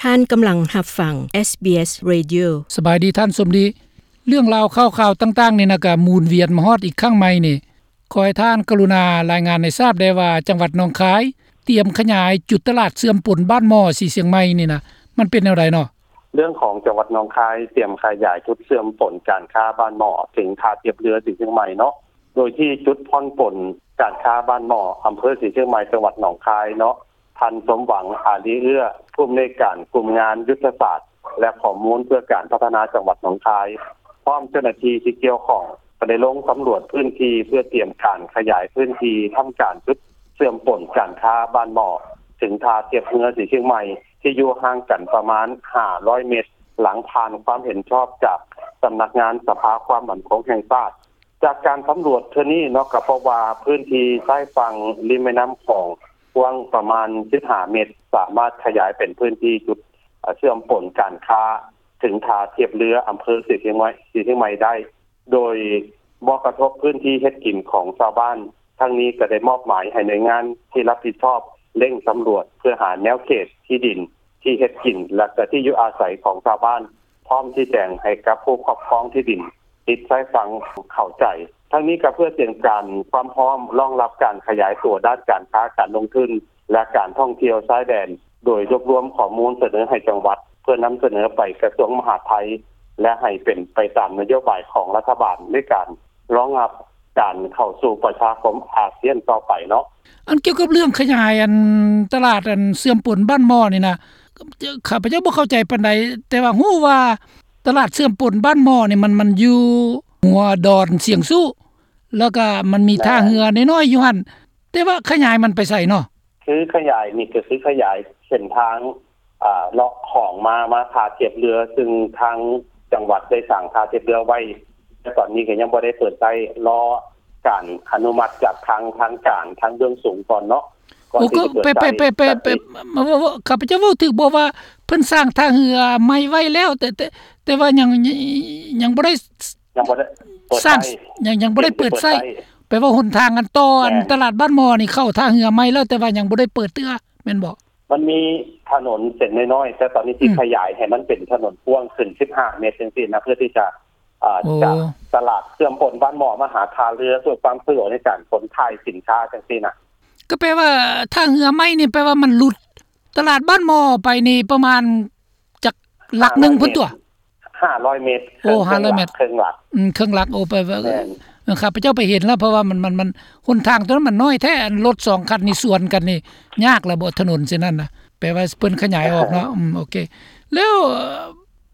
ທ່ານກຳລັງຮັບຟັງ ເອສບີເອສ Radio. ສະບາຍດີທ່ານສົມດີ. ເລື່ອງລາວຂ່າວໆຕ່າງໆນີ້ນະ ກະໝູນວຽນມາຮອດອີກຄັ້ງໃໝ່ນີ້. ຂໍໃຫ້ທ່ານກະລຸນາລາຍງານໃຫ້ຊາບແດ່ວ່າ ຈັງຫວັດໜອງຄາຍຕຽມຂະຫຍາຍຈຸດຕະຫຼາດເຊື່ອມປົນບ້ານໝໍ່ ສີຊຽງໃໝ່ນີ້ນະ ມັນເປັນແນວໃດເນາະ? ເລື່ອງຂອງຈັງຫວັດໜອງຄາຍຕຽມຂະຫຍາຍຈຸດເຊື່ອມປົນການຄ້າບ້ານໝໍ່ເຖິງທ່າທຽບເຮືອສີຊຽງໃໝ່ເນາະ, ໂດຍທີ່ຈຸດຜ່ອນປົນການຄ້າບ້ານໝໍ່ ອຳເພີສີຊຽງໃໝ່ ຈັງຫວັດໜອງຄາຍເນາະ, ທ່ານ ສົມຫວັງ ອາລີເອື້ອ ຜູ້ອຳນວຍການກຸ່ມງານຍຸດທະສາດ ແລະ ຂໍ້ມູນເພື່ອການພັດທະນາຈັງຫວັດໜອງຄາຍ ພ້ອມເຈົ້າໜ້າທີ່ທີ່ກ່ຽວຂ້ອງ ກໍໄດ້ລົງສຳຫຼວດພື້ນທີ່ເພື່ອຕຽມການຂະຫຍາຍພື້ນທີ່ທຳການຈຸດເຊື່ອມປົນການຄ້າບ້ານໝໍ່ ເຖິງທ່າທຽບເຮືອສີຊຽງໃໝ່ ທີ່ຢູ່ຫ່າງກັນປະມານຫ້າຮ້ອຍເມັດ ຫຼັງຜ່ານຄວາມເຫັນຊອບຈາກສຳນັກງານສະພາຄວາມໝັ້ນຄົງແຫ່ງຊາດ. ຈາກການສຳຫຼວດເທື່ອນີ້ເນາະ ກໍພົບວ່າພື້ນທີ່ຊາຍຝັ່ງລິມແມ່ນ້ຳຂອງ ກວ້າງປະມານສິບຫ້າເມັດ ສາມາດຂະຫຍາຍເປັນພື້ນທີ່ຈຸດ ເຊື່ອມປົນການຄ້າເຖິງທ່າທຽບເຮືອອຳເພີສີຊຽງໃໝ່ ສີຊຽງໃໝ່ໄດ້ ໂດຍບໍ່ກະທົບພື້ນທີ່ເຮັດກິນຂອງຊາວບ້ານ. ທັງນີ້ກໍໄດ້ມອບໝາຍໃຫ້ໜ່ວຍງານທີ່ຮັບຜິດຊອບເລັ່ງສຳຫຼວດ ເພື່ອຫາແນວເຂດທີ່ດິນທີ່ເຮັດກິນ ແລະ ກໍທີ່ຢູ່ອາໄສຂອງຊາວບ້ານ ພ້ອມຊີ້ແຈງໃຫ້ກັບຜູ້ຄອບຄອງທີ່ດິນຕິດຊາຍຝັ່ງເຂົ້າໃຈ. ທັງນີ້ກໍເພື່ອຕຽມການຄວາມພ້ອມລອງຮັບການຂະຫຍາຍຕົວດ້ານການຄ້າ, ການລົງທຶນ ແລະ ການທ່ອງທ່ຽວຊາຍແດນ ໂດຍລວບລວມຂໍ້ມູນສະເໜີໃຫ້ຈັງຫວັດ ເພື່ອນຳສະເໜີໄປກະຊວງມະຫາດໄທ ແລະ ໃຫ້ເປັນໄປຕາມນະໂຍບາຍຂອງລັດຖະບານໃນການ ລອງຮັບການເຂົ້າສູ່ປະຊາຄົມອາຊຽນຕໍ່ໄປເນາະ. ອັນກ່ຽວກັບເລື່ອງຂະຫຍາຍອັນຕະຫຼາດອັນເຊື່ອມປົນບ້ານໝໍ່ນີ້ນະ ຂ້າພະເຈົ້າບໍ່ເຂົ້າໃຈປານໃດ, ແຕ່ວ່າຮູ້ວ່າຕະຫຼາດເຊື່ອມປົນບ້ານໝໍ່ນີ້ ມັນ ມັນຢູ່ຫົວດອນຊຽງຊູ້ ແລ້ວກະມັນມີ ແມ່ນ ທ່າເຮືອນ້ອຍໆຢູ່ຫັ້ນ, ແຕ່ວ່າຂະຫຍາຍມັນໄປໃສເນາະ? ຄືຂະຫຍາຍນີ້ກໍຄືຂະຫຍາຍເສັ້ນທາງ ອ່າ ເລາະຂອງມາ ມາທ່າທຽບເຮືອ ຊຶ່ງທາງຈັງຫວັດໄດ້ສ້າງທ່າທຽບເຮືອໄວ້ ແຕ່ຕອນນີ້ກໍຍັງບໍ່ໄດ້ເປີດໃຊ້ ລໍການອະນຸມັດຈາກທາງທາງການ ທາງເບື້ອງສູງກ່ອນເນາະ ກ່ອນ ໂອ້ ທີ່ຈະເປີດໃຊ້. ຂ້າພະເຈົ້າເວົ້າຖືກບໍ່ວ່າເພິ່ນສ້າງທ່າເຮືອໃໝ່ໄວ້ແລ້ວ ແຕ່ ແຕ່ ແຕ່ວ່າຍັງ ຍັງ ຍັງບໍ່ໄດ້ ຍັງບໍ່ໄດ້ເປີດໃຊ້ ຍັງ ຍັງບໍ່ໄດ້ເປີດໃຊ້ ຍັງບໍ່ໄດ້ເປີດໃຊ້ ແປວ່າຫົນທາງອັນຕໍ່ອັນ ແມ່ນ ຕະຫຼາດບ້ານໝໍ່ນີ້ເຂົ້າທ່າເຮືອໃໝ່ແລ້ວ ແຕ່ວ່າຍັງບໍ່ໄດ້ເປີດເທື່ອ ແມ່ນບໍ່? ມັນມີຖະໜົນເສັ້ນນ້ອຍໆ ແຕ່ຕອນນີ້ ອືມ ຊິຂະຫຍາຍໃຫ້ມັນເປັນຖະໜົນກວ້າງຂຶ້ນສິບຫ້າເມັດຈັ່ງຊີ້ນະ ເພື່ອທີ່ຈະ ເອີ ອໍ ຈາກຕະຫຼາດເຊື່ອມປົນບ້ານໝໍ່ມາຫາທ່າເຮືອ ເພື່ອຄວາມສະດວກໃນການຂົນຖ່າຍສິນຄ້າຈັ່ງຊີ້ນະ. ກໍແປວ່າທ່າເຮືອໃໝ່ນີ້ ແປວ່າມັນຫຼຸດຕະຫຼາດບ້ານໝໍ່ໄປນີ້ປະມານຈັກຫຼັກໜຶ່ງພຸ້ນຕົວະ? ຫ້າຮ້ອຍເມັດ ຫ້າຮ້ອຍເມັດ ເຄິ່ງຫຼັກ ເຄິ່ງຫຼັກ ອືມ ເຄິ່ງຫຼັກ. ໂອ້ ແປວ່າ ແມ່ນ ເອີ ຂ້າພະເຈົ້າໄປເຫັນແລ້ວ ເພາະວ່າມັນ ມັນ ມັນ ຫົນທາງຕົວນັ້ນມັນນ້ອຍແທ້ ອັນລົດສອງຄັນນີ້ສວນກັນນີ້ຍາກລະບໍ ຖະໜົນເສັ້ນນັ້ນນະ ແປວ່າເພິ່ນຂະຫຍາຍອອກເນາະ. ອືມ ໂອເຄ ແລ້ວ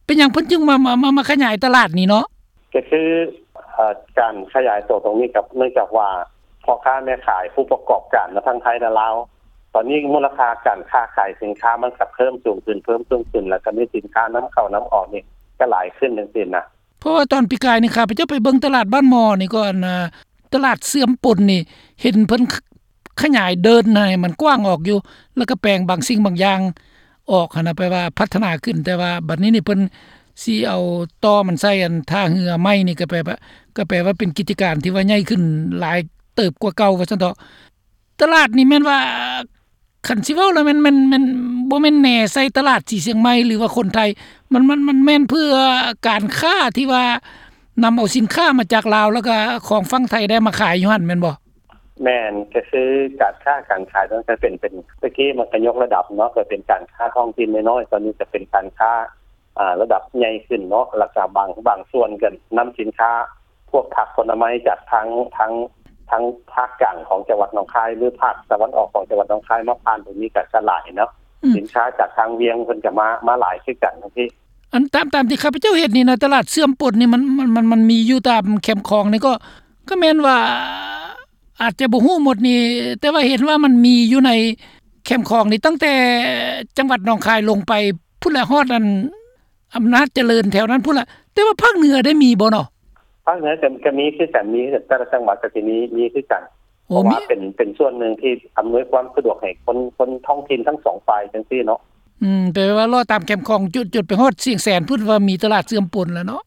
ເປັນຫຍັງເພິ່ນຈຶ່ງມາ ມາ ມາ ມາຂະຫຍາຍຕະຫຼາດນີ້ເນາະ? ກໍຄື ເອີ ການຂະຫຍາຍຕົວຕົງນີ້ ກໍເນື່ອງຈາກວ່າ ພໍ່ຄ້າແມ່ຂາຍ ຜູ້ປະກອບການມາທັງໄທ ແລະ ລາວ ຕອນນີ້ມູນລະຄ່າການຄ້າຂາຍສິນຄ້າມັນກໍເພີ່ມສູງຂຶ້ນ ເພີ່ມສູງຂຶ້ນ ແລ້ວກໍມີສິນຄ້ານຳເຂົ້ານຳອອກນີ້ກໍຫຼາຍຂຶ້ນຈັ່ງຊີ້ນະ. ເພາະວ່າຕອນປີກາຍນີ້ ຂ້າພະເຈົ້າໄປເບິ່ງຕະຫຼາດບ້ານໝໍ່ນີ້ ກໍອັນ ເອີ ຕະຫຼາດເຊື່ອມປົນນີ້ ເຫັນເພິ່ນ ຂະຫຍາຍເດີ່ນໃຫ້ມັນກວ້າງອອກຢູ່ ແລ້ວກໍແປງບາງສິ່ງບາງຢ່າງອອກຫັ້ນນະ ແປວ່າພັດທະນາຂຶ້ນ. ແຕ່ວ່າບັດນີ້ນີ້ເພິ່ນຊິເອົາຕໍ່ມັນໃສ່ອັນທ່າເຮືອໃໝ່ນີ້ ກໍແປວ່າ ກໍແປວ່າເປັນກິດຈະການທີ່ວ່າໃຫຍ່ຂຶ້ນຫຼາຍເຕີບກວ່າເກົ່າວ່າຊັ້ນເຖາະ. ຕະຫຼາດນີ້ແມ່ນວ່າ ຄັນຊິເວົ້າແລ້ວແມ່ນ ແມ່ນ ແມ່ນ ບໍ່ແມ່ນແນໃສ່ຕະຫຼາດສີຊຽງໃໝ່ ຫຼືວ່າຄົນໄທ ມັນ ມັນ ມັນແມ່ນເພື່ອການຄ້າທີ່ວ່ານຳເອົາສິນຄ້າມາຈາກລາວ ແລ້ວກໍຂອງຝັ່ງໄທໄດ້ມາຂາຍຢູ່ຫັ້ນແມ່ນບໍ່? ແມ່ນ ກໍຄືການຄ້າການຂາຍ ມັນກໍເປັນ ເປັນ ແຕ່ກີ້ມັນກໍຍົກລະດັບເນາະ ກໍເປັນການຄ້າທ້ອງຖິ່ນນ້ອຍໆ ຕອນນີ້ກໍເປັນການຄ້າ ອ່າ ລະດັບໃຫຍ່ຂຶ້ນເນາະ ແລ້ວກໍບາງ ບາງສ່ວນກໍນຳສິນຄ້າ ພວກຜັກຜົນລະໄມ້ຈາກທາງ ທາງ ທາງພາກກາງຂອງຈັງຫວັດໜອງຄາຍ ຫຼື ພາກຕາເວັນອອກຂອງຈັງຫວັດໜອງຄາຍມາຜ່ານຕົງນີ້ກໍ ກໍຫຼາຍເນາະ. ອືມ ສິນຄ້າຈາກທາງວຽງເພິ່ນກໍມາ ມາຫຼາຍຄືກັນຈັ່ງຊີ້. ອັນຕາມ ຕາມທີ່ຂ້າພະເຈົ້າເຫັນນີ້ນະ ຕະຫຼາດເຊື່ອມປົນນີ້ ມັນ ມັນ ມັນ ມັນມີຢູ່ຕາມແຄມຂອງນີ້ ກໍ ກໍແມ່ນວ່າ ອາດຈະບໍ່ຮູ້ໝົດນີ້ ແຕ່ວ່າເຫັນວ່າມັນມີຢູ່ໃນແຄມຂອງນີ້ ຕັ້ງແຕ່ຈັງຫວັດໜອງຄາຍລົງໄປພຸ້ນແຫຼະ ຮອດອັນ ອຳນາດຈະເລີນແຖວນັ້ນພຸ້ນລະ. ແຕ່ວ່າພາກເໜືອໄດ້ມີບໍ່ເນາະ? ພາກເໜືອກໍ ກໍມີຄືກັນ ມີຄືກັນ ແຕ່ລະຈັງຫວັດກໍຊິມີ ມີຄືກັນ. ໂອ້ ເພາະວ່າ ມີ ເປັນ ເປັນສ່ວນໜຶ່ງທີ່ອຳນວຍຄວາມສະດວກໃຫ້ຄົນ ຄົນທ້ອງຖິ່ນທັງສອງຝ່າຍຈັ່ງຊີ້ເນາະ. ອືມ ແປວ່າເລາະຕາມແຄມຂອງ ຈົນ ຈົນໄປຮອດຊຽງແສນພຸ້ນ ວ່າມີຕະຫຼາດເຊື່ອມປົນແຫຼະເນາະ.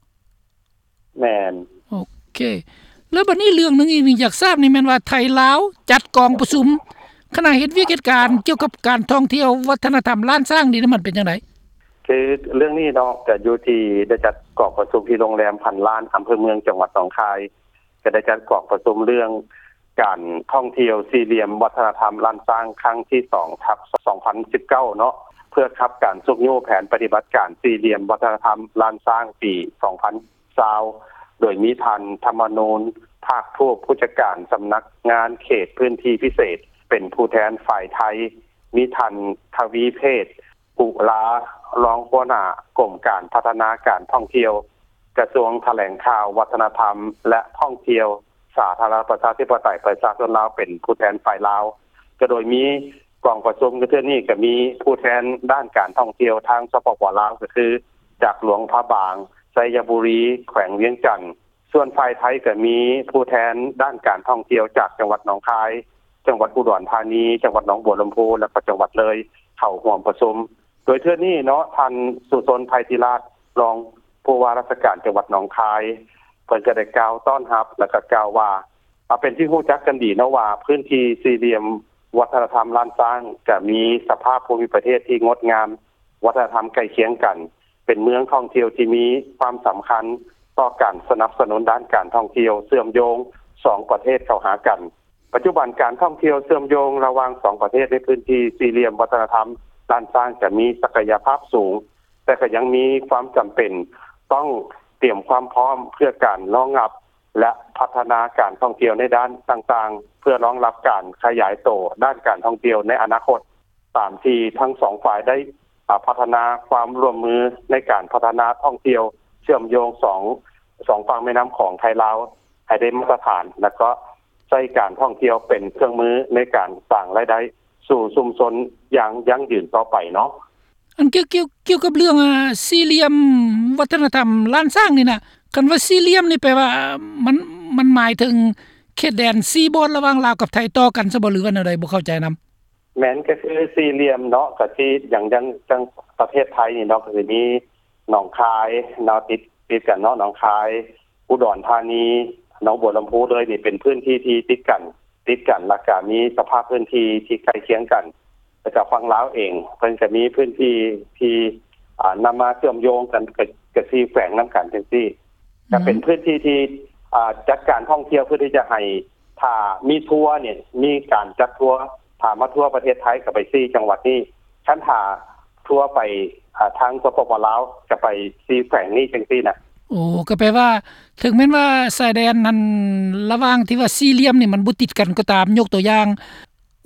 ແມ່ນ. ໂອເຄ ແລ້ວບັດນີ້ເລື່ອງໜຶ່ງອີກນີ້ ຢາກຊາບນີ້ແມ່ນວ່າ ໄທລາວຈັດກອງປະຊຸມຄະນະເຮັດວຽກເຮັດການກ່ຽວກັບການທ່ອງທ່ຽວວັດທະນະທຳລ້ານຊ້າງນີ້ ມັນເປັນຈັ່ງໃດ? ຄືເລື່ອງນີ້ເນາະ ກະຢູ່ທີ່ໄດ້ຈັດກອງປະຊຸມທີ່ໂຮງແຮມພັນລ້ານ ອຳເພີເມືອງ ຈັງຫວັດໜອງຄາຍ ກະໄດ້ຈັດກອງປະຊຸມເລື່ອງການທ່ອງທ່ຽວສີ່ຫຼ່ຽມວັດທະນະທຳລ້ານຊ້າງ ຄັ້ງທີສອງ ທັບ ສອງພັນສິບເກົ້າເນາະ ເພື່ອຂັບການຊຸກຍູ້ແຜນປະຕິບັດການສີ່ຫຼ່ຽມວັດທະນະທຳລ້ານຊ້າງປີສອງພັນຊາວ ໂດຍມີທ່ານ ທຳມະນູນ ພາກທູບ ຜູ້ຈັດການສຳນັກງານເຂດພື້ນທີ່ພິເສດ ເປັນຜູ້ແທນຝ່າຍໄທ, ມີທ່ານ ທະວີເພດ ປຸລາ ຮອງຫົວໜ້າກົມການພັດທະນາການທ່ອງທ່ຽວ ກະຊວງຖະແຫຼງຂ່າວ ວັດທະນະທຳ ແລະ ທ່ອງທ່ຽວ ສາທາລະນະລັດ ປະຊາທິປະໄຕ ປະຊາຊົນລາວ ເປັນຜູ້ແທນຝ່າຍລາວ ກະໂດຍມີກອງປະຊຸມເທື່ອນີ້ ກະມີຜູ້ແທນດ້ານການທ່ອງທ່ຽວທາງ ສປປ ລາວ ກະຄືຈາກຫຼວງພະບາງ, ໄຊຍະບູລີ, ແຂວງວຽງຈັນ, ສ່ວນຝ່າຍໄທກະມີຜູ້ແທນດ້ານການທ່ອງທ່ຽວຈາກຈັງຫວັດໜອງຄາຍ, ຈັງຫວັດອຸດອນທານີ, ຈັງຫວັດໜອງບົວລຳພູ ແລະ ກະຈັງຫວັດເລີຍ ເຂົ້າຮ່ວມປະຊຸມ. ໂດຍເທື່ອນີ້ເນາະ ທ່ານ ສຸຊົນ ໄພທິລາດ ຮອງຜູ້ວ່າລາຊະການຈັງຫວັດໜອງຄາຍ ເພິ່ນກະໄດ້ກ່າວຕ້ອນຮັບ ແລະ ກະກ່າວວ່າ ເປັນທີ່ຮູ້ຈັກກັນດີເນາະວ່າ ພື້ນທີ່ສີ່ຫຼ່ຽມວັດທະນະທຳລ້ານຊ້າງ ກະມີສະພາບພູມິປະເທດທີ່ງົດງາມ, ວັດທະນະທຳໃກ້ຄຽງກັນ, ເປັນເມືອງທ່ອງທ່ຽວທີ່ມີຄວາມສຳຄັນຕໍ່ການສະໜັບສະໜູນດ້ານການທ່ອງທ່ຽວເຊື່ອມໂຍງສອງປະເທດເຂົ້າຫາກັນ. ປັດຈຸບັນການທ່ອງທ່ຽວເຊື່ອມໂຍງລະຫວ່າງສອງປະເທດໃນພື້ນທີ່ສີ່ຫຼ່ຽມວັດທະນະທຳລ້ານຊ້າງ ກະມີສັກກະຍະພາບສູງ, ແຕ່ກະຍັງມີຄວາມຈຳເປັນຕ້ອງຕຽມຄວາມພ້ອມເພື່ອການຮອງຮັບ ແລະ ພັດທະນາການທ່ອງທ່ຽວໃນດ້ານຕ່າງໆ ເພື່ອຮອງຮັບການຂະຫຍາຍໂຕດ້ານການທ່ອງທ່ຽວໃນອະນາຄົດ ຕາມທີ່ທັງສອງຝ່າຍໄດ້ ອາ ພັດທະນາຄວາມຮ່ວມມືໃນການພັດທະນາທ່ອງທ່ຽວເຊື່ອມໂຍງສອງ ສອງຝັ່ງແມ່ນ້ຳຂອງໄທລາວໃຫ້ໄດ້ມາດຕະຖານ ແລະ ກໍໃຊ້ການທ່ອງທ່ຽວເປັນເຄື່ອງມືໃນການສ້າງລາຍໄດ້ສູ່ຊຸມຊົນຢ່າງຢັ້ງຢືນຕໍ່ໄປເນາະ. ອັນກ່ຽວ ກ່ຽວ ກ່ຽວກັບເລື່ອງ ອາ ສີ່ຫຼ່ຽມວັດທະນະທຳລ້ານຊ້າງນີ້ນະ ຄັນວ່າສີ່ຫຼ່ຽມນີ້ແປວ່າ ມັນ ມັນໝາຍເຖິງເຂດແດນສີ່ບ່ອນລະຫວ່າງລາວກັບໄທຕໍ່ກັນຊະບໍ່ ຫຼືວ່າແນວໃດ? ບໍ່ເຂົ້າໃຈນຳ. ແມ່ນ ກະຄືສີ່ຫຼ່ຽມເນາະ ກະຊິຢ່າງ ຢ່າງ ຈັ່ງປະເທດໄທນີ້ເນາະ ກະຊິມີໜອງຄາຍເນາະ ຕິດ ຕິດກັນເນາະ ໜອງຄາຍ ອຸດອນທານີ ໜອງບົວລຳພູເລີຍນີ້ ເປັນພື້ນທີ່ທີ່ຕິດກັນ ຕິດກັນ ແລ້ວກະມີສະພາບພື້ນທີ່ທີ່ໃກ້ຄຽງກັນ ແລ້ວກະຝັ່ງລາວເອງ ເພິ່ນກະມີພື້ນທີ່ທີ່ ອາ ນຳມາເຊື່ອມໂຍງກັນ ກະ ກະສີ່ແຂວງນຳກັນຈັ່ງຊີ້ ກະເປັນພື້ນທີ່ທີ່ ອືມ ອາ ຈັດການທ່ອງທ່ຽວ ເພື່ອທີ່ຈະໃຫ້ ຖ້າມີທົວນີ້ ມີການຈັດທົວ ຖ້າມາທົວປະເທດໄທກະໄປສີ່ຈັງຫວັດນີ້ ຄັນຖ້າທົວໄປ ອາ ທາງ ສປປ ລາວ ກະໄປສີ່ແຂວງນີ້ຈັ່ງຊີ້ນະ. ໂອ້ ກະແປວ່າ ເຖິງແມ່ນວ່າຊາຍແດນຫັ້ນ ລະຫວ່າງທີ່ວ່າສີ່ຫຼ່ຽມນີ້ມັນບໍ່ຕິດກັນກໍຕາມ ຍົກຕົວຢ່າງ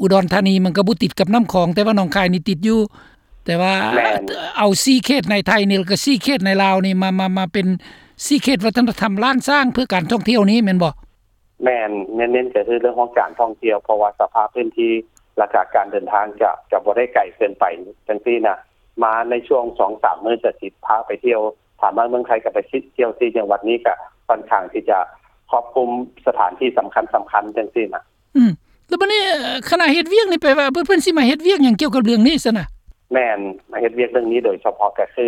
ອຸດອນທານີມັນກະບໍ່ຕິດກັບນ້ຳຂອງ ແຕ່ວ່າໜອງຄາຍນີ້ຕິດຢູ່ ແຕ່ວ່າ ແມ່ນ ເອົາສີ່ເຂດໃນໄທນີ້ ແລ້ວກະສີ່ເຂດໃນລາວນີ້ ມາ ມາ ມາເປັນສີ່ເຂດວັດທະນະທຳລ້ານຊ້າງ ເພື່ອການທ່ອງທ່ຽວນີ້ແມ່ນບໍ່? ແມ່ນ ເນັ້ນ ເນັ້ນກະຄືເລື່ອງຂອງການທ່ອງທ່ຽວ ເພາະວ່າສະພາບພື້ນທີ່ ແລ້ວກະການເດີນທາງກະ ກະບໍ່ໄດ້ໄກເກີນໄປຈັ່ງຊີ້ນະ ມາໃນຊ່ວງສອງສາມມື້ກະຊິພາໄປທ່ຽວ ຖ້າມາເມືອງໄທກະໄປ ສີ່ ທ່ຽວສີ່ຈັງຫວັດນີ້ ກະຂ້ອນຂ້າງທີ່ຈະຄອບຄຸມສະຖານທີ່ສຳຄັນໆ ຈັ່ງຊີ້ນະ. ອືມ ແລ້ວບາດນີ້ ຄະນະເຮັດວຽກນີ້ ແປວ່າເພິ່ນ ເພິ່ນຊິມາເຮັດວຽກຫຍັງກ່ຽວກັບເລື່ອງນີ້ຊັ້ນນະ? ແມ່ນ ມາເຮັດວຽກເລື່ອງນີ້ໂດຍສະເພາະ ກະຄື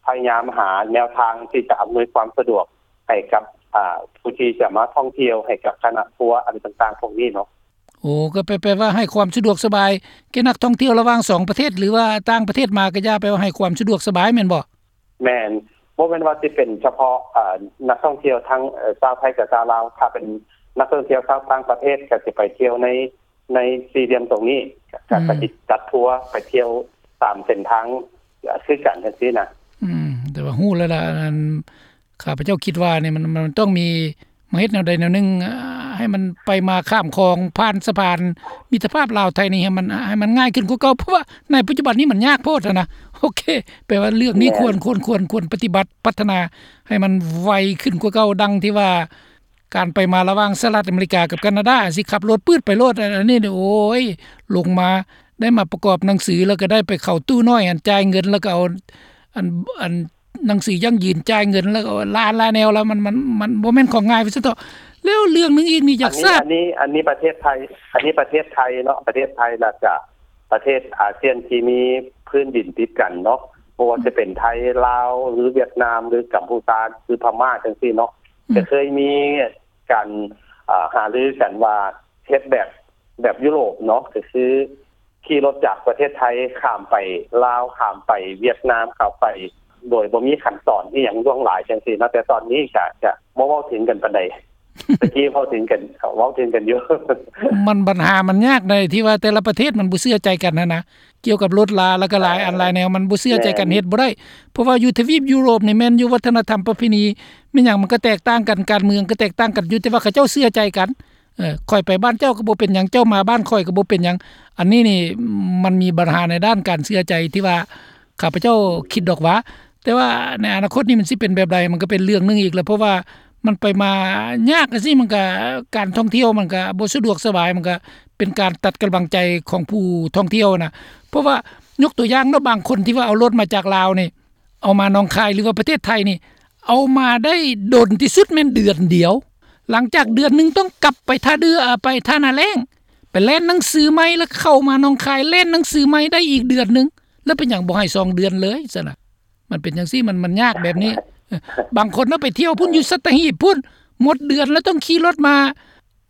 ພະຍາຍາມຫາແນວທາງທີ່ຈະອຳນວຍຄວາມສະດວກໃຫ້ກັບ ອາ ຜູ້ທີ່ຈະມາທ່ອງທ່ຽວ ໃຫ້ກັບຄະນະທົວ ອາ ອັນຕ່າງໆ ພວກນີ້ເນາະ. ໂອ້ ກະແປ ແປວ່າໃຫ້ຄວາມສະດວກສະບາຍແກ່ນັກທ່ອງທ່ຽວລະຫວ່າງສອງປະເທດ ຫຼືວ່າຕ່າງປະເທດມາກະຢ່າ ແປວ່າໃຫ້ຄວາມສະດວກສະບາຍແມ່ນບໍ່? ແມ່ນ ບໍ່ແມ່ນວ່າຊິເປັນສະເພາະ ອາ ນັກທ່ອງທ່ຽວທັງ ເອີ ຊາວໄທກັບຊາວລາວ ຖ້າເປັນນັກທ່ອງທ່ຽວຊາວຕ່າງປະເທດກະຊິໄປທ່ຽວໃນ ໃນສີ່ຫຼ່ຽມຕົງນີ້ ກະ ອືມ ກະຊິຈັດທົວໄປທ່ຽວຕາມເສັ້ນທາງ ອາ ຄືກັນຈັ່ງຊີ້ນະ. ອືມ ແຕ່ວ່າຮູ້ແລ້ວລະ ອັນ ຂ້າພະເຈົ້າຄິດວ່ານີ້ ມັນ ມັນຕ້ອງມີ ມາເຮັດແນວໃດແນວໜຶ່ງ ອາ ໃຫ້ມັນໄປມາຂ້າມຂອງ ຜ່ານສະພານມິດຕະພາບລາວໄທນີ້ ໃຫ້ມັນ ໃຫ້ມັນງ່າຍຂຶ້ນກວ່າເກົ່າ ເພາະວ່າໃນປັດຈຸບັນນີ້ມັນຍາກໂພດຫັ້ນນະ. ໂອເຄ ແປວ່າເລື່ອງນີ້ ແມ່ນ ຄວນ ຄວນ ຄວນ ຄວນປະຕິບັດພັດທະນາໃຫ້ມັນໄວຂຶ້ນກວ່າເກົ່າ ດັ່ງທີ່ວ່າ ການໄປມາລະຫວ່າງສະຫະລັດອາເມລິກາກັບການາດາ ຊິຂັບລົດປຶດໄປໂລດ ອັນນີ້ ໂອ້ຍ ລົງມາ ໄດ້ມາປະກອບໜັງສື ແລ້ວກະໄດ້ໄປເຂົ້າຕູ້ນ້ອຍ ອັນຈ່າຍເງິນ ແລ້ວກະເອົາ ອັນ ອັນ ໜັງສືຢັ້ງຢືນຈ່າຍເງິນ ແລ້ວກໍຫຼາຍ ຫຼາຍແນວ ແລ້ວມັນ ມັນ ມັນບໍ່ແມ່ນຂອງງ່າຍວ່າຊັ້ນເຖາະ. ແລ້ວເລື່ອງໜຶ່ງອີກນີ້ຢາກຊາບ ອັນນີ້ ອັນນີ້ປະເທດໄທ ອັນນີ້ປະເທດໄທເນາະ ປະເທດໄທ ແລ້ວກະປະເທດອາຊຽນທີ່ມີພື້ນດິນຕິດກັນເນາະ ບໍ່ວ່າຈະເປັນໄທ ລາວ ຫຼືຫວຽດນາມ ຫຼືກຳພູຊາ ຫຼືພະມ້າ ຈັ່ງຊີ້ເນາະ ກະເຄີຍມີການ ອາ ຫາລືກັນວ່າເຮັດແບບ ແບບຢູໂຣບເນາະ ກະຄືເຂ ຂີ່ລົດຈາກປະເທດໄທຂ້າມໄປລາວ ຂ້າມໄປຫວຽດນາມ ຂ້າມໄປໂດຍບໍ່ມີຂັ້ນຕອນອີ່ຫຍັງລ່ວງຫຼາຍຈັ່ງຊີ້ເນາະ ແຕ່ຕອນນີ້ກະ ກະບໍ່ເວົ້າເຖິງກັນປານໃດ. ແຕ່ກີ້ເວົ້າເຖິງກັນ ເວົ້າເຖິງກັນຢູ່. ມັນ ບັນຫາມັນຍາກໃດ ທີ່ວ່າແຕ່ລະປະເທດມັນບໍ່ເຊື່ອໃຈກັນຫັ້ນນະ ກ່ຽວກັບລົດລາ ແລ້ວກໍຫຼາຍອັນ ແມ່ນ ຫຼາຍແນວ ມັນບໍ່ເຊື່ອໃຈກັນ ແມ່ນ ເຮັດບໍ່ໄດ້. ເພາະວ່າຢູ່ທະວີບຢູໂຣບນີ້ແມ່ນຢູ່ ວັດທະນະທຳປະເພນີແມ່ນຫຍັງມັນກໍແຕກຕ່າງກັນ ການເມືອງກໍແຕກຕ່າງກັນຢູ່ ແຕ່ວ່າເຂົາເຈົ້າເຊື່ອໃຈກັນ. ເອີ ຂ້ອຍໄປບ້ານເຈົ້າກໍບໍ່ເປັນຫຍັງ ເຈົ້າມາບ້ານຂ້ອຍກໍບໍ່ເປັນຫຍັງ. ອັນນີ້ນີ້ມັນມີບັນຫາໃນດ້ານການເຊື່ອໃຈ ທີ່ວ່າຂ້າພະເຈົ້າຄິດດອກວ່າ ແຕ່ວ່າໃນອະນາຄົດນີ້ມັນຊິເປັນແບບໃດ ມັນກໍເປັນເລື່ອງໜຶ່ງອີກແຫຼະ ເພາະວ່າມັນໄປມາຍາກຈັ່ງຊີ້ ມັນກໍ ການທ່ອງທ່ຽວມັນກໍບໍ່ສະດວກສະບາຍ ມັນກໍເປັນການຕັດກຳລັງໃຈຂອງຜູ້ທ່ອງທ່ຽວນະ. ເພາະວ່າຍົກຕົວຢ່າງເນາະ ບາງຄົນທີ່ວ່າເອົາລົດມາຈາກລາວນີ້ ເອົາມາໜອງຄາຍ ຫຼືວ່າປະເທດໄທນີ້ ເອົາມາໄດ້ດົນທີ່ສຸດແມ່ນເດືອນດຽວ. ຫຼັງຈາກເດືອນໜຶ່ງຕ້ອງກັບໄປທ່າເຮືອ ໄປທ່ານາແລ້ງ ໄປແລ່ນໜັງສືໃໝ່ ແລ້ວເຂົ້າມາໜອງຄາຍ ແລ່ນໜັງສືໃໝ່ໄດ້ອີກເດືອນໜຶ່ງ. ແລ້ວເປັນຫຍັງບໍ່ໃຫ້ສອງເດືອນເລີຍຊັ້ນນະ? ມັນເປັນຈັ່ງຊີ້ ມັນ ມັນຍາກແບບນີ້. ເອີ ບາງຄົນເນາະ ໄປທ່ຽວພຸ້ນຢູ່ສັດຕະຫີບພຸ້ນ ໝົດເດືອນແລ້ວຕ້ອງຂີ່ລົດມາ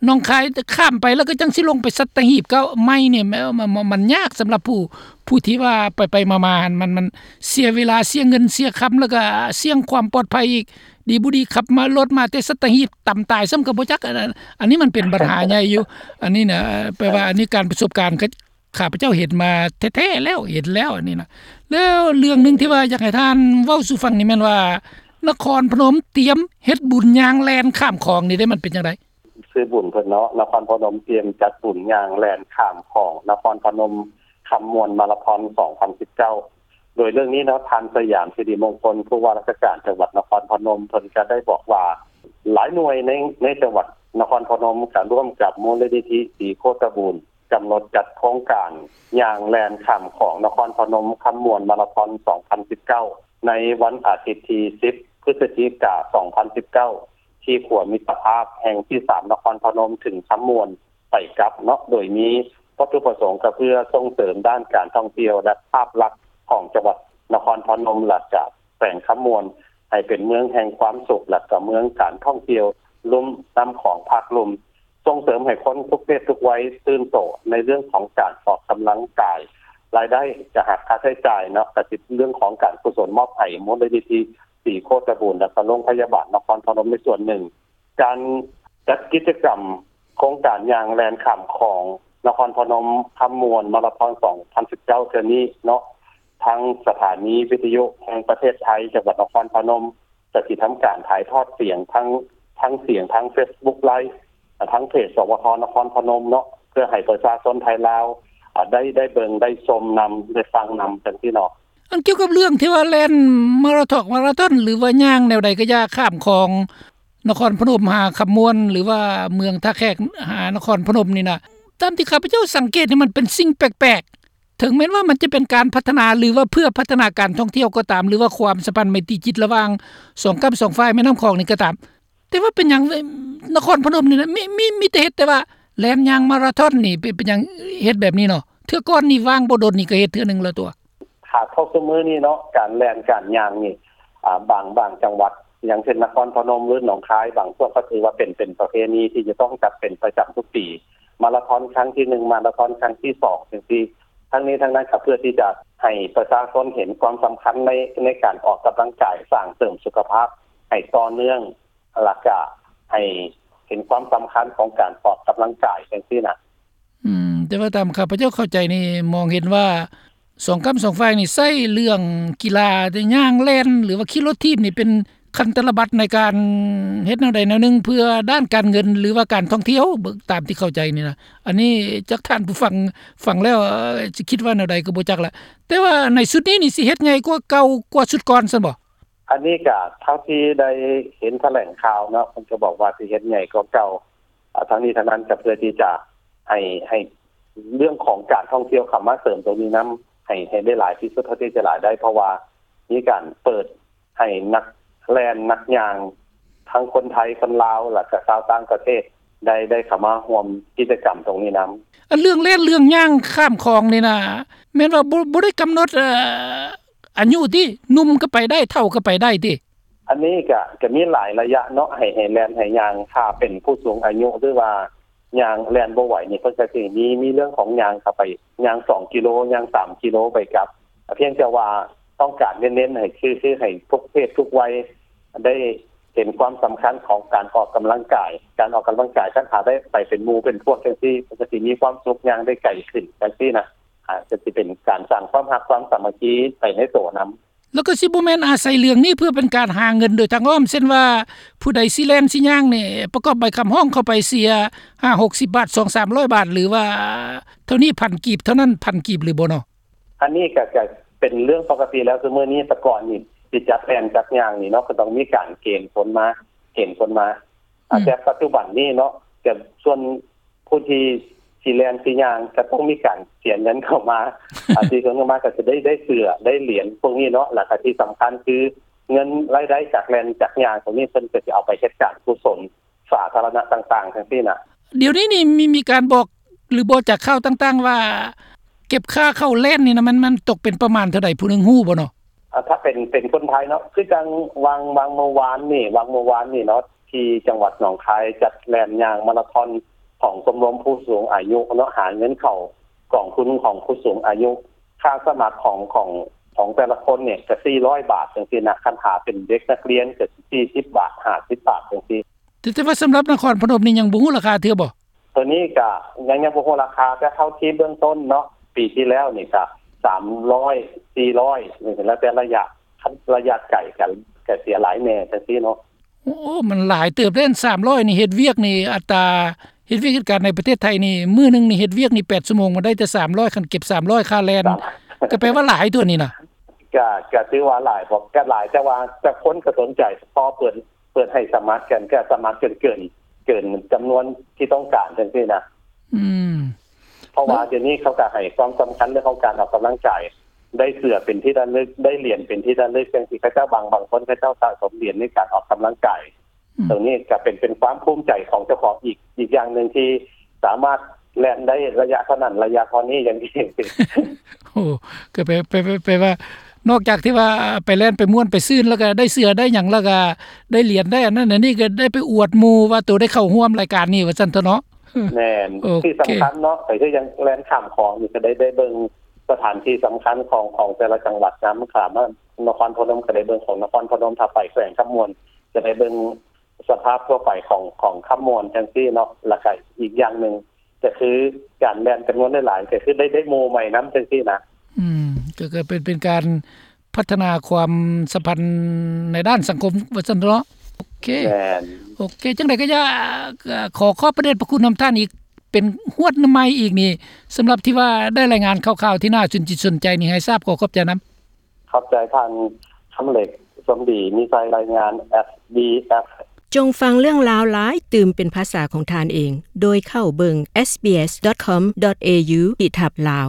ໜອງຄາຍ ຂ້າມໄປແລ້ວກໍຈັ່ງຊິລົງໄປສັດຕະຫີບກໍໃໝ່ນີ້ ມັນ ມັນ ມັນຍາກສຳລັບຜູ້ ຜູ້ທີ່ວ່າໄປໆມາໆ ມັນ ມັນເສຍເວລາ ເສຍເງິນ ເສຍຄຳ ແລ້ວກໍສ່ຽງຄວາມປອດໄພອີກ. ດີບໍ່ດີຂັບມາ ລົດມາແຕ່ສັດຕະຫີບ ຕຳຕາຍຊ້ຳກໍບໍ່ຈັກ. ອັນ ອັນນີ້ມັນເປັນບັນຫາໃຫຍ່ຢູ່. ອັນນີ້ນະ ແປວ່າອັນນີ້ການປະສົບການ ຂ້າພະເຈົ້າເຫັນມາແທ້ໆແລ້ວ ເຫັນແລ້ວອັນນີ້ນະ. ແລ້ວເລື່ອງໜຶ່ງທີ່ວ່າຢາກໃຫ້ທ່ານເວົ້າສູ່ຟັງນີ້ແມ່ນວ່າ ນະຄອນພະນົມຕຽມເຮັດບຸນຍ່າງແລ່ນຂ້າມຂອງນີ້ເດ້ ມັນເປັນຈັ່ງໃດ? ຊື່ບຸນເພິ່ນເນາະ ນະຄອນພະນົມຕຽມຈັດບຸນຍ່າງແລ່ນຂ້າມຂອງ ນະຄອນພະນົມຄຳມ່ວນມາລາທອນສອງພັນສິບເກົ້າ. ໂດຍເລື່ອງນີ້ເນາະ ທ່ານ ສະຫຍາມ ສິລິມົງຄົນ ຜູ້ວ່າລາຊະການຈັງຫວັດນະຄອນພະນົມ ເພິ່ນກະໄດ້ບອກວ່າ ຫຼາຍໜ່ວຍໃນ ໃນຈັງຫວັດນະຄອນພະນົມ ກະຮ່ວມກັບມູນນິທິສີໂຄດຕະບູນ ກຳນົດຈັດໂຄງການຍ່າງແລ່ນຂ້າມຂອງນະຄອນພະນົມຄຳມ່ວນມາລາທອນສອງພັນສິບເກົ້າ ໃນວັນອາທິດທີສິບ ພຶສຈິກາ ສອງພັນສິບເກົ້າ ທີ່ຂົວມິດຕະພາບແຫ່ງທີສາມ ນະຄອນພະນົມເຖິງຄຳມ່ວນໄປກັບເນາະ ໂດຍມີວັດຖຸປະສົງກະເພື່ອສົ່ງເສີມດ້ານການທ່ອງທ່ຽວ ແລະ ພາບລັກຂອງຈັງຫວັດນະຄອນພະນົມ ແລະ ກະແຂວງຄຳມ່ວນ ໃຫ້ເປັນເມືອງແຫ່ງຄວາມສຸກ ແລະ ກະເມືອງການທ່ອງທ່ຽວລຸ່ມນ້ຳຂອງພາກລຸ່ມ. ສົ່ງເສີມໃຫ້ຄົນທຸກເພດທຸກໄວຕື່ນໂຕໃນເລື່ອງຂອງການອອກກຳລັງກາຍ, ລາຍໄດ້ຈະຫັກຄ່າໃຊ້ຈ່າຍເນາະ, ກະຊິເລື່ອງຂອງການກຸສົນມອບໃຫ້ມູນນິທິສີໂຄດຕະບູນ ແລະ ກະໂລງພະຍາບານນະຄອນພະນົມໃນສ່ວນໜຶ່ງ. ການຈັດກິດຈະກຳໂຄງການຍ່າງແລ່ນຂ້າມຂອງນະຄອນພະນົມຄຳມ່ວນມາລາທອນສອງພັນສິບເກົ້າເທື່ອນີ້ເນາະ, ທາງສະຖານີວິທະຍຸແຫ່ງປະເທດໄທ ຈັງຫວັດນະຄອນພະນົມ ກະຊິທຳການຖ່າຍທອດສຽງ ທັງ ທັງສຽງທາງເຟສບຸກໄລຟ໌ ທາງເພຈ ສວທ ນະຄອນພະນົມເນາະ ເພື່ອໃຫ້ປະຊາຊົນໄທລາວ ອາ ໄດ້ ໄດ້ເບິ່ງໄດ້ຊົມນຳ ໄດ້ຟັງນຳ ຈັ່ງຊີ້ເນາະ. ອັນກ່ຽວກັບເລື່ອງທີ່ວ່າແລ່ນມາລາທອກ ມາລາທອນ ຫຼືວ່າຍ່າງແນວໃດກໍຢ່າ ຂ້າມຂອງນະຄອນພະນົມຫາຄຳມ່ວນ ຫຼືວ່າເມືອງທ່າແຂກຫານະຄອນພະນົມນີ້ນະ ຕາມທີ່ຂ້າພະເຈົ້າສັງເກດນີ້ ມັນເປັນສິ່ງແປກໆ. ເຖິງແມ່ນວ່າມັນຈະເປັນການພັດທະນາ ຫຼືວ່າເພື່ອພັດທະນາການທ່ອງທ່ຽວກໍຕາມ ຫຼືວ່າຄວາມສຳພັນໄມຕີຈິດລະຫວ່າງສອງກ້ຳສອງຝ່າຍແມ່ນ້ຳຂອງນີ້ກໍຕາມ, ແຕ່ວ່າເປັນຫຍັງນະຄອນພະນົມນີ້ນະ ມີ ມີ ມີແຕ່ເຮັດແຕ່ວ່າແລ່ນຍ່າງມາລາທອນນີ້ ເປັນ ເປັນຫຍັງເຮັດແບບນີ້ເນາະ? ເທື່ອກ່ອນນີ້ວ່າງບໍ່ດົນນີ້ກໍເຮັດເທື່ອໜຶ່ງແລ້ວຕົວະ. ຫາກເທົ່າຊຸມມື້ນີ້ເນາະ ການແລ່ນການຍ່າງນີ້ ອາ ບາງ ບາງຈັງຫວັດ ຢ່າງເຊັ່ນນະຄອນພະນົມ ຫຼື ໜອງຄາຍ ບາງຊ່ວງກໍຖືວ່າເປັນ ເປັນປະເພນີທີ່ຈະຕ້ອງຈັດເປັນປະຈຳທຸກປີ. ມາລາທອນຄັ້ງທີໜຶ່ງ ມາລາທອນຄັ້ງທີສອງ ຈັ່ງຊີ້. ທັງນີ້ທັງນັ້ນກໍເພື່ອທີ່ຈະໃຫ້ປະຊາຊົນເຫັນຄວາມສຳຄັນໃນ ໃນການອອກກຳລັງກາຍ ສ້າງເສີມສຸຂະພາບໃຫ້ຕໍ່ເນື່ອງ ແລ້ວກະໃຫ້ເຫັນຄວາມສຳຄັນຂອງການອອກກຳລັງກາຍ ຈັ່ງຊີ້ນະ. ອືມ ແຕ່ວ່າຕາມຂ້າພະເຈົ້າເຂົ້າໃຈນີ້ ມອງເຫັນວ່າ ສອງກ້ຳສອງຝ່າຍນີ້ໃຊ້ເລື່ອງກິລາ ແຕ່ຍ່າງແລ່ນ ຫຼືວ່າຂີ່ລົດຖີບນີ້ເປັນຄັນຕະລະບັດໃນການເຮັດແນວໃດແນວໜຶ່ງ ເພື່ອດ້ານການເງິນ ຫຼືວ່າການທ່ອງທ່ຽວ ເບິ່ງຕາມທີ່ເຂົ້າໃຈນີ້ນະ. ອັນນີ້ຈັກທ່ານຜູ້ຟັງຟັງແລ້ວ ເອີ ຊິຄິດວ່າແນວໃດກໍບໍ່ຈັກລະ. ແຕ່ວ່າໃນຊຸດນີ້ນີ້ຊິເຮັດໃຫຍ່ກວ່າເກົ່າ ກວ່າຊຸດກ່ອນຊັ້ນບໍ? ອັນນີ້ກະເທົ່າທີ່ໄດ້ເຫັນຖະແຫຼງຂ່າວເນາະ ເພິ່ນກໍບອກວ່າຊິເຮັດໃຫຍ່ກວ່າເກົ່າ. ອາ ທັງນີ້ທັງນັ້ນກໍເພື່ອທີ່ຈະໃຫ້ ໃຫ້ເລື່ອງຂອງການທ່ອງທ່ຽວເຂົ້າມາເສີມຕົງນີ້ນຳ ໃຫ້ ໃຫ້ໄດ້ຫຼາຍທີ່ສຸດເທົ່າທີ່ຈະຫຼາຍໄດ້ ເພາະວ່າມີການເປີດໃຫ້ນັກແລ່ນນັກຍ່າງ ທັງຄົນໄທ ຄົນລາວ ແລ້ວກະຊາວຕ່າງປະເທດ ໄດ້ ໄດ້ເຂົ້າມາຮ່ວມກິດຈະກຳຕົງນີ້ນຳ. ອັນເລື່ອງແລ່ນເລື່ອງຍ່າງຂ້າມຂອງນີ້ນະ ແມ່ນວ່າບໍ່ ບໍ່ໄດ້ກຳນົດ ເອີ ອາຍຸຕິ? ໜຸ່ມກໍໄປໄດ້ ເຖົ້າກໍໄປໄດ້ຕິ? ອັນນີ້ກະ ກະມີຫຼາຍໄລຍະເນາະ ໃຫ້ ໃຫ້ແລ່ນໃຫ້ຍ່າງ ຖ້າເປັນຜູ້ສູງອາຍຸ ຫຼືວ່າ ຍ່າງແລ່ນບໍ່ໄຫວນີ້ ເພິ່ນກໍຊິມີ ມີເລື່ອງຂອງຍ່າງເຂົ້າໄປ ຍ່າງສອງກິໂລ ຍ່າງສາມກິໂລໄປກັບ ພຽງແຕ່ວ່າຕ້ອງການເນັ້ນໆໃຫ້ ຄື ຄືໃຫ້ທຸກເພດທຸກໄວໄດ້ເຫັນຄວາມສຳຄັນຂອງການອອກກຳລັງກາຍ. ການອອກກຳລັງກາຍ ຄັນຫາໄດ້ໄປເປັນໝູ່ເປັນພວກຈັ່ງຊີ້ ເພິ່ນກໍຊິມີຄວາມສຸກ ຍ່າງໄດ້ໄກຂຶ້ນຈັ່ງຊີ້ນະ. ອາດຈະຊິເປັນການສ້າງຄວາມຮັກຄວາມສາມັກຄີໄປໃນໂຕນຳ. ແລ້ວກໍຊິບໍ່ແມ່ນອາໄສເລື່ອງນີ້ເພື່ອເປັນການຫາເງິນໂດຍທາງອ້ອມ ເຊັ່ນວ່າ ຜູ້ໃດຊິແລ່ນຊິຍ່າງນີ້ ປະກອບໃບຄຳຮ້ອງເຂົ້າໄປເສຍຫ້າຫົກສິບບາດ ສອງສາມຮ້ອຍບາດ ຫຼືວ່າເທົ່ານີ້ພັນກີບ ເທົ່ານັ້ນພັນກີບ ຫຼືບໍ່ເນາະ? ອັນນີ້ກໍ ກໍເປັນເລື່ອງປົກກະຕິແລ້ວ ຊຸມື້ນີ້. ແຕ່ກ່ອນນີ້ຊິຈັກແລ່ນຈັກຍ່າງນີ້ເນາະ ກໍຕ້ອງມີການເກນຄົນມາ ເກນຄົນມາ. ອືມ ແຕ່ປັດຈຸບັນນີ້ເນາະ ແຕ່ສ່ວນຜູ້ທີ່ຊິແລ່ນຊິຍ່າງ ກໍຕ້ອງມີການເສຍເງິນເຂົ້າມາ ອາ ທີ່ເງິນເຂົ້າມາກໍຈະໄດ້ ໄດ້ເສື້ອ ໄດ້ຫຼຽນພວກນີ້ເນາະ. ແລ້ວກໍທີ່ສຳຄັນຄືເງິນລາຍໄດ້ຈາກແລ່ນຈາກຍ່າງຕົງນີ້ ເພິ່ນກໍຈະເອົາໄປເຮັດການກຸສົນສາທາລະນະຕ່າງໆ ຈັ່ງຊີ້ນະ. ດຽວນີ້ນີ້ມີ ມີການບອກ ຫຼືບໍ່ ຈາກຂ່າວຕ່າງໆວ່າ ເກັບຄ່າເຂົ້າແລ່ນນີ້ນະ ມັນ ມັນຕົກເປັນປະມານເທົ່າໃດ ຜູ້ໜຶ່ງຮູ້ບໍ່ເນາະ? ອາ ຖ້າເປັນ ເປັນຄົນໄທເນາະ ຄືຈັ່ງຫວ່າງ ຫວ່າງມື້ວານນີ້ ຫວ່າງມື້ວານນີ້ເນາະ ທີ່ຈັງຫວັດໜອງຄາຍຈັດແລ່ນຍ່າງມາລາທອນຂອງຊົມລົມຜູ້ສູງອາຍຸເນາະ ຫາເງິນເຂົ້າກອງທຶນຂອງຜູ້ສູງອາຍຸ ຄ່າສະໝັກຂອງ ຂອງ ຂອງແຕ່ລະຄົນນີ້ກໍສີ່ຮ້ອຍບາດຈັ່ງຊີ້ນະ ຄັນຫາເປັນເດັກນັກຮຽນກໍສີ່ສິບບາດ ຫ້າສິບບາດຈັ່ງຊີ້. ແຕ່ ແຕ່ວ່າສຳລັບນະຄອນພະນົມນີ້ຍັງບໍ່ຮູ້ລາຄາເທື່ອບໍ່? ໂຕນີ້ກະຍັງ ຍັງບໍ່ຮູ້ລາຄາ ແຕ່ເທົ່າທີ່ເບື້ອງຕົ້ນເນາະ ປີທີ່ແລ້ວນີ້ກະສາມຮ້ອຍ ສີ່ຮ້ອຍ ນີ້ ແລ້ວແຕ່ໄລຍະ ຄັນໄລຍະໄກກະ ກະເສຍຫຼາຍແດ່ຈັ່ງຊີ້ເນາະ. ໂອ້ ມັນຫຼາຍເຕີບເດ້ ສາມຮ້ອຍນີ້ ເຮັດວຽກນີ້ ອັດຕາເຮັດວຽກເຮັດການໃນປະເທດໄທນີ້ ມື້ໜຶ່ງນີ້ເຮັດວຽກນີ້ແປດຊົ່ວໂມງ ມັນໄດ້ແຕ່ສາມຮ້ອຍ ຄັນເກັບສາມຮ້ອຍຄ່າແລ່ນ ກໍແປວ່າຫຼາຍຕົວນີ້ນະ. ກະ ກະຖືວ່າຫຼາຍບໍ່? ກະຫຼາຍ ແຕ່ວ່າ ແຕ່ຄົນກໍສົນໃຈ ພໍເປີດ ເປີດໃຫ້ສະໝັກກັນ ກໍສະໝັກເກີນ ເກີນ ເກີນຈຳນວນທີ່ຕ້ອງການຈັ່ງຊີ້ນະ. ອືມ ເພາະວ່າດຽວນີ້ເຂົາກໍໃຫ້ຄວາມສຳຄັນເລື່ອງຂອງການອອກກຳລັງກາຍ ໄດ້ເສື້ອເປັນທີ່ລະລຶກ ໄດ້ຫຼຽນເປັນທີ່ລະນຶກ ຈັ່ງຊີ້ ເຂົາເຈົ້າ ບາງ ບາງຄົນເຂົາເຈົ້າສະສົມຫຼຽນໃນການອອກກຳລັງກາຍ. ອືມ ຕົງນີ້ກໍເປັນ ເປັນຄວາມພູມໃຈຂອງເຈົ້າຂອງອີກ ອີກຢ່າງໜຶ່ງທີ່ສາມາດແລ່ນໄດ້ໄລຍະເທົ່ານັ້ນ ໄລຍະເທົ່ານີ້ຢ່າງນີ້. ໂອ້ ກໍແປ ແປ ແປ ແປວ່າ ນອກຈາກທີ່ວ່າໄປແລ່ນໄປມ່ວນໄປຊື່ນ ແລ້ວກໍໄດ້ເສື້ອໄດ້ຫຍັງ ແລ້ວກໍໄດ້ຫຼຽນໄດ້ອັນນັ້ນອັນນີ້ ກໍໄດ້ໄປອວດໝູ່ວ່າໂຕໄດ້ເຂົ້າຮ່ວມລາຍການນີ້ ວ່າຊັ້ນເຖາະເນາະ. ແມ່ນ ໂອເຄ ທີ່ສຳຄັນເນາະ ກໍຄືຢ່າງແລ່ນຂ້າມຂອງນີ້ ກໍໄດ້ ໄດ້ເບິ່ງສະຖານທີ່ສຳຄັນຂອງ ຂອງແຕ່ລະຈັງຫວັດນຳ ຂ້າມມານະຄອນພະນົມ ກໍໄດ້ເບິ່ງຂອງນະຄອນພະນົມ ຖ້າໄປແຂວງຄຳມ່ວນ ຈະໄດ້ເບິ່ງສະພາບທົ່ວໄປຂອງ ຂອງຄຳມ່ວນຈັ່ງຊີ້ເນາະ. ແລ້ວກະອີກຢ່າງໜຶ່ງ ກໍຄືການແລ່ນຈຳນວນຫຼາຍໆ ກໍຄືໄດ້ ໄດ້ໝູ່ໃໝ່ນຳຈັ່ງຊີ້ນະ. ອືມ ກໍ ກໍເປັນ ເປັນການພັດທະນາຄວາມສຳພັນໃນດ້ານສັງຄົມວ່າຊັ້ນເນາະ. ໂອເຄ ແມ່ນ ໂອເຄ ຈັ່ງໃດກໍຢ່າ ຂໍຂອບພະເດດພະຄຸນນຳທ່ານອີກ ເປັນຮວດໃໝ່ອີກນີ້ ສຳລັບທີ່ວ່າໄດ້ລາຍງານຂ່າວໆ ທີ່ໜ້າສົນຈິດສົນໃຈນີ້ໃຫ້ຊາບ. ຂໍຂອບໃຈນຳ. ຂອບໃຈທ່ານຄຳເລັກ ສົມດີມີໄຊ ລາຍງານ ເອສບີເອຟ. ຈົ່ງຟັງເລື່ອງລາວຫຼາຍຕື່ມເປັນພາສາຂອງທ່ານເອງ ໂດຍເຂົ້າເບິ່ງ ເອສບີເອສດອດຄອມດອດເອຢູ ຂີດທັບ ລາວ.